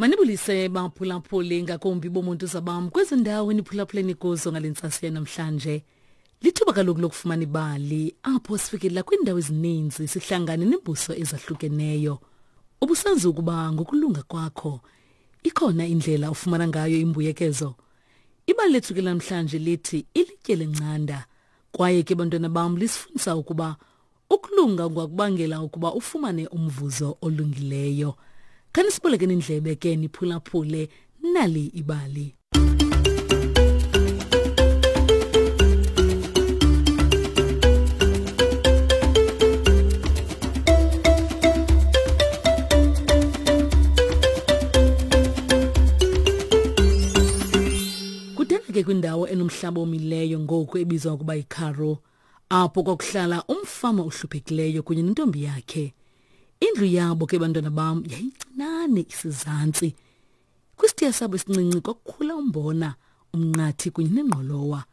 Manibulise baphulaphuli ngakumbi bomuntu zabam kwezi ndawo eniphulaphuleni kuzo ngale ntsasa yanamhlanje. Lithuba kaloku lokufumana ibali apho sifikelela kwiindawo ezininzi sihlangane neembuso ezahlukeneyo. Ubusazi ukuba ngokulunga kwakho ikhona indlela ofumana ngayo imbuyekezo. Ibali lethu ke namhlanje lithi ilitye lencanda kwaye ke bantwana bam lisifundisa ukuba Ukulunga kungakubangela ukuba ufumane umvuzo olungileyo. Khanisibolekeni indlebe ke niphulaphule nali ibali. Kudala ke kwindawo enomhlaba omileyo ngoku ebizwa ukuba yiKaroo apho kwakuhlala umfama ohluphekileyo kunye nentombi yakhe. Indlu yabo ke bantwana bam yayincinane isizantsi. Kwisitiya sabo esincinci kwakukhula umbona, umnqathi kunye nengqolowa.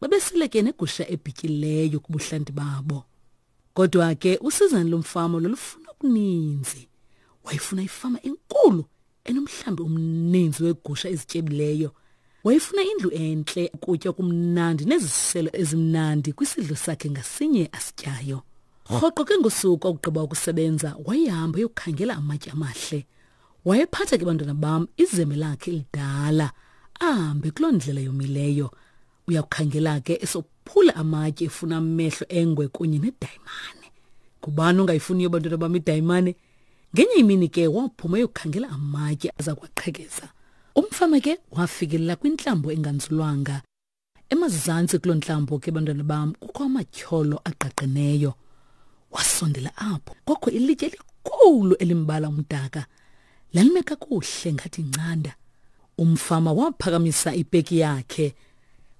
Babesele ke negusha ebhityileyo kubuhlanti babo. Kodwa ke usizana lomfama lolufuna okuninzi. Wayefuna ifama enkulu enomhlambi omninzi weegusha ezityebileyo. Wayefuna indlu entle, ukutya okumnandi neziselo ezimnandi kwisidlo sakhe ngasinye asityayo. Rhoqo ke ngosuku akugqiba ukusebenza wayehamba eyokhangela amatye amahle. Wayephatha ke bantwana bam izembe lakhe elidala ahambe kuloo ndlela yomileyo. Uyakukhangela ke esophula amatye efuna amehlo engwe kunye nedayimane. Ngubani ongayifuniyo bantwana bam idayimane? Ngenye imini ke waphuma eyokhangela amatye aza kwaqhekeza. Umfama ke wafikelela kwintlambo enganzulwanga. Emazantsi kuloo ntlambo ke bantwana bam kukho amatyholo agqagqeneyo. Wasondela apho kwakho ilitye elikhulu elimbala umdaka. Lalime kakuhle ngathi incanda. Umfama waphakamisa ipeki yakhe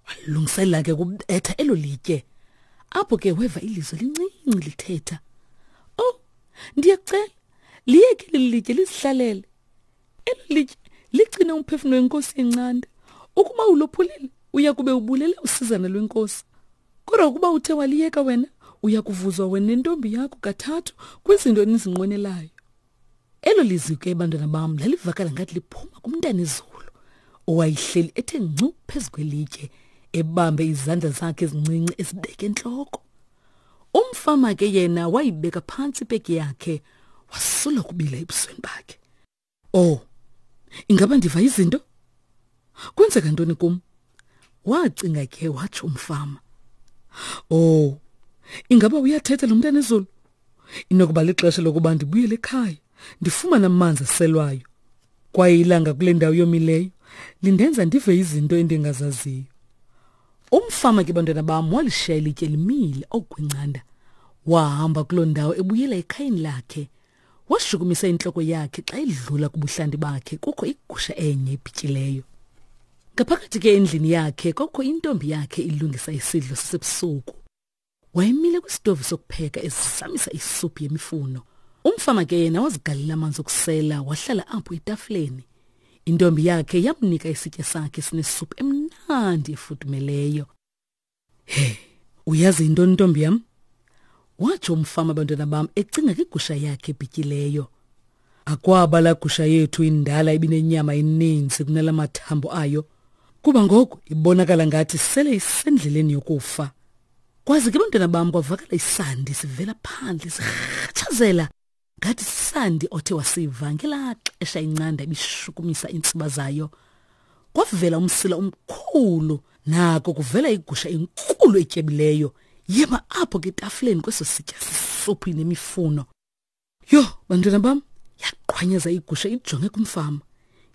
walungiselela ke kubetha elo litye. Apho ke weva ilizwi elincinci lithetha. Oh, Ndiyacela, liyeke leli litye lizihlalele. Elo litye ligcine umphefumlo wenkosi yencanda. Ukuba ulophulile, uya kube ubulele usizana lwenkosi. Kodwa ukuba uthe waliyeka wena, uya kuvuzwa wena nentombi yakho kathathu kwizinto enizinqwenelayo. Elo lizwi ke bantwana bam lalivakala ngathi liphuma kumntanezulu owayehleli ethe ngcu phezu kwelitye ebambe izandla zakhe ezincinci ezibeke entloko. Umfama ke yena wayibeka phantsi ipeki yakhe wasula kubila ebusweni bakhe. Oh, ingaba ndiva izinto? Kwenzeka ntoni kum? Wacinga ke watsho umfama. Oh, ingaba uyathetha lo mntana ezulu? Inokuba lixesha lokuba ndibuyele ekhaya, ndifumane amanzi aselwayo. Kwaye ilanga kule ndawo yomileyo lindenza ndive izinto endingazaziyo. Umfama ke bantwana bam walishiya ilitye limile okwencanda. Wahamba kuloo ndawo ebuyela ekhayeni lakhe. Washukumisa intloko yakhe xa edlula kubuhlanti bakhe kukho igusha enye ebhityileyo. Ngaphakathi ke endlini yakhe kwakukho intombi yakhe ilungisa isidlo sasebusuku. Wayemile kwisitovu sokupheka ezizamisa isuphu yemifuno. Umfama ke yena wazigalela amanzi okusela wahlala apho etafileni. Intombi yakhe yamnika isitya sakhe sinesuphu emnandi efudumeleyo. He, uyazi yintoni ntombi yam? Watsho umfama abantwana bam ecinga ngegusha yakhe ebhityileyo. Akwaba la gusha yethu indala ibinenyama eninzi kunala mathambo ayo, kuba ngoku ibonakala ngathi sele isendleleni yokufa. Kwaze ke bantwana bam kwavakala isandi sivela phandle sirhatshazela ngathi sisandi othe wasiva ngelaa xesha incanda ibishukumisa iintsiba zayo. Kwavela umsila omkhulu nako kuvela igusha enkulu etyebileyo yema apho ke etafileni kweso sitya sisuphu nemifuno. Yho, bantwana bam, yaqhwanyeza igusha ijonge kumfama.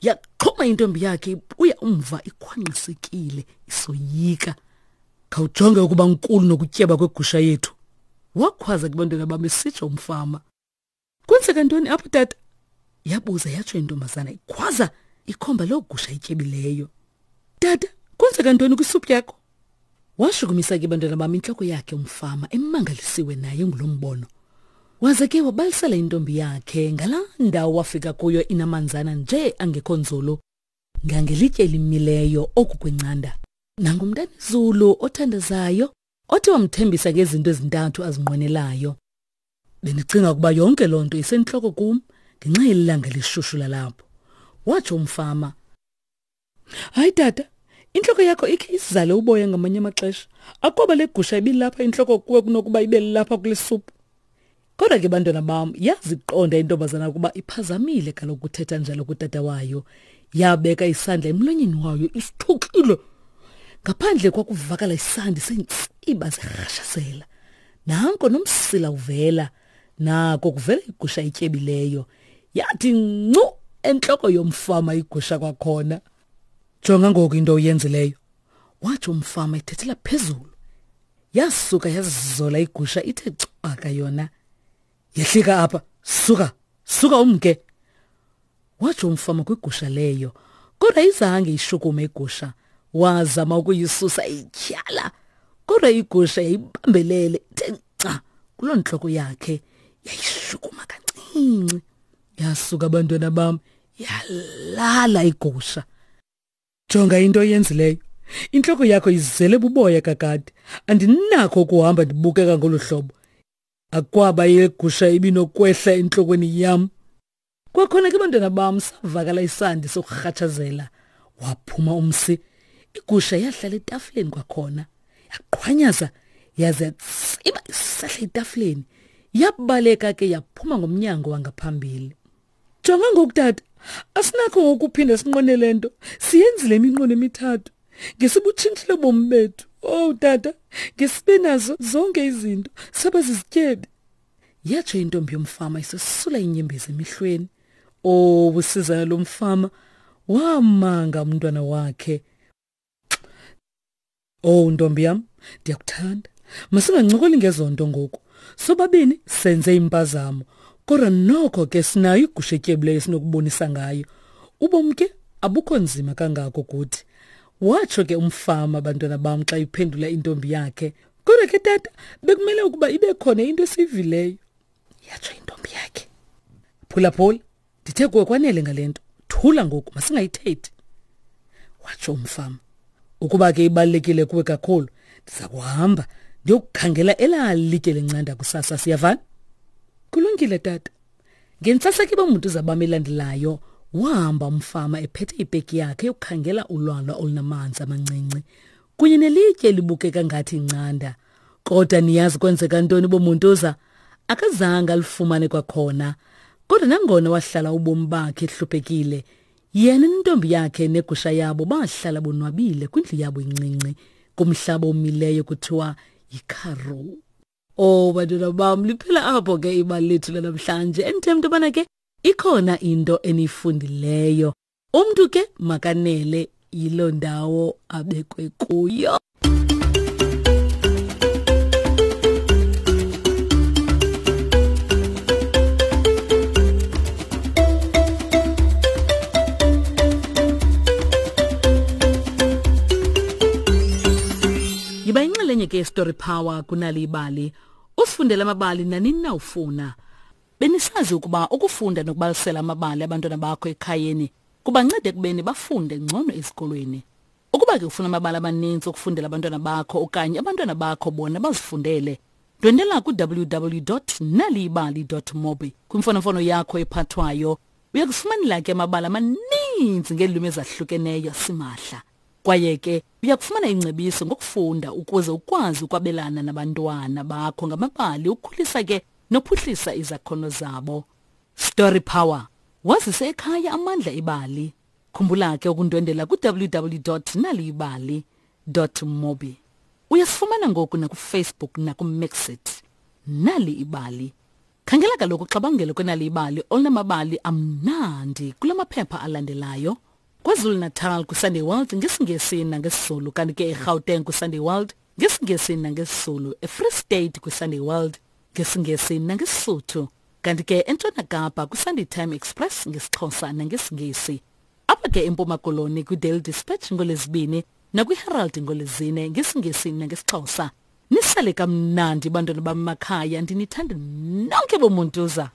Yaxhuma intombi yakhe ibuya umva ikhwanqisekile isoyika. Khawujonge ukuba nkulu nokutyeba kwegusha yethu. Wakhwaza kubantwana bam esitsho umfama. Kwenzeka ntoni apho tata? Yabuza yatsho intombazana ikhwaza ikhomba loo gusha ityebileyo. Tata, kwenzeka ntoni kwisuphu yakho? Washukumisa ke bantwana bam intloko yakhe umfama emangalisiwe naye ngulo mbono. Waze ke wabalisela intombi yakhe ngalaa ndawo wafika kuyo inamanzana nje angekho nzulu ngangelitye elimileyo oku kwencanda. Nangumntanezulu othandazayo othi wamthembisa ngezinto ezintathu azinqwenelayo. Bendicinga ukuba yonke loo nto isentloko kum ngenxa yelilanga elishushu lalapho. watsho umfama. Hayi tata, intloko yakho ikhe izale uboya ngamanye amaxesha. Akwaba le gusha ibilapha intloko kuwe kunokuba ibe lapha kule suphu. Kodwa ke bantwana bam, yaziqonda intombazana ukuba iphazamile kaloku kuthetha njalo kutata wayo. Yabeka isandla emlonyeni wayo isithukile. Ngaphandle kwakuvakala isandi seentsiba zirhashazela. Nanko nomsila uvela. Nako kuvela igusha etyebileyo. Yathi ncu entloko yomfama igusha kwakhona. Jonga ngoku into oyenzileyo, watsho umfama ethethela phezulu. Yasuka yazizola igusha ithe cwaka yona. Yehlika apha, suka, suka umke. Watsho umfama kwigusha leyo, kodwa izange ishukume igusha. Wazama ukuyisusa ityhala, kodwa igusha yayibambelele ithe nca kuloo ntloko yakhe, yayishukuma kancinci. Yasuka abantwana bam, yalala igusha. Jonga into oyenzileyo. Intloko yakho izele buboya kakade. Andinakho ukuhamba ndibukeka ngolu hlobo. Akwaba yegusha ibinokwehla entlokweni yam. Kwakhona ke bantwana bam savakala isandi sokurhatshazela. Waphuma umsi. Igusha yahlala etafileni kwakhona. Yaqhwanyaza yaze yatsiba isehla etafileni. Yabaleka ke yaphuma ngomnyango wangaphambili. Jonga ngoku tata, asinakho ngokuphinda sinqone le nto. Siyenzile iminqweno emithathu. Ngesibutshintshile ubomi bethu. Oh tata, ngesibe nazo zonke izinto. Saba zizityebi. Yatsho intombi yomfama isesula inyembezi emehlweni. Oh, usizana lomfama wamanga umntwana wakhe. Oh ntombi yam, ndiyakuthanda. Masingancokoli ngezonto ngoku. Sobabini senze impazamo. Kodwa noko ke sinayo igusha etyebileyo esinokubonisa ngayo. Ubomi ke abukho nzima kangako kuthi. Watsho ke umfama bantwana bam xa iphendula intombi yakhe. Kodwa ke tata, bekumele ukuba ibe khona into esiyivileyo. Yatsho intombi yakhe. Phulaphula, ndithe kuwe kwanele ngale nto. Thula ngoku, masingayithethi. Watsho umfama. Ukuba ke ibalulekile kuwe kakhulu, ndiza kuhamba ndiyokukhangela elaa litye lencanda kusasa, siyavana? Kulungile tata. Ngentsasa ke bomuntu zabam elandelayo, wahamba umfama ephethe ipeki yakhe yokukhangela ulwalwa olunamanzi amancinci kunye nelitye elibukeka ngathi incanda. Kodwa niyazi kwenzeka ntoni bomuntuza? Akazange alifumane kwakhona. Kodwa nangona wahlala ubomi bakhe ehluphekile, yena nentombi yakhe negusha yabo bahlala bonwabile kwindlu yabo incinci kumhlaba omileyo kuthiwa yiKaroo. Oh bantwana bam, liphela apho ke ibali lethu lanamhlanje. Endithemba into yobana ke ikhona into eniyifundileyo. Umntu ke makanele yiloo ndawo abekwe kuyo. Yiba yinxalenye ke yeStory Power kunali ibali. Usifundele amabali nanini na ufuna. Benisazi ukuba ukufunda nokubalisela amabali abantwana bakho ekhayeni kubanceda ekubeni bafunde ngcono ezikolweni. Ukuba ke ufuna amabali amaninzi okufundela abantwana bakho okanye abantwana bakho bona bazifundele, ndwendela ku-www.naliyibali.mobi kwimfonomfono yakho ephathwayo. Uya kufumanela ke amabali amaninzi ngeelwimi ezahlukeneyo simahla. Kwaye ke uya kufumana ingcebiso ngokufunda ukuze ukwazi ukwabelana nabantwana bakho ngamabali ukhulisa ke nophuhlisa izakhono zabo. Story Power. Wazise ekhaya amandla ebali. Khumbula ke ukundwendela ku-www.naliyibali.mobi. Uyasifumana ngoku nakuFacebook nakuMixit. Nali ibali. Khangela kaloku uxabangelo kwenali ibali olunamabali amnandi kula maphepha alandelayo. KwaZulu-Natal kwiSunday World ngesiNgesi nangesiZulu, kanti ke eGauteng kwiSunday World ngesiNgesi nangesiZulu, eFree State kwiSunday World ngesiNgesi nangeSisuthu, kanti ke eNtshona Kapa kwiSunday Time Express ngesiXhosa nangesiNgesi. Apha ke eMpuma Koloni kwiDaily Dispatch ngoLwezibini nakwiHerald ngoLwezine ngesiNgesi nangesiXhosa. Nisale kamnandi bantwana bam makhaya, ndinithanda nonke bomuntuza.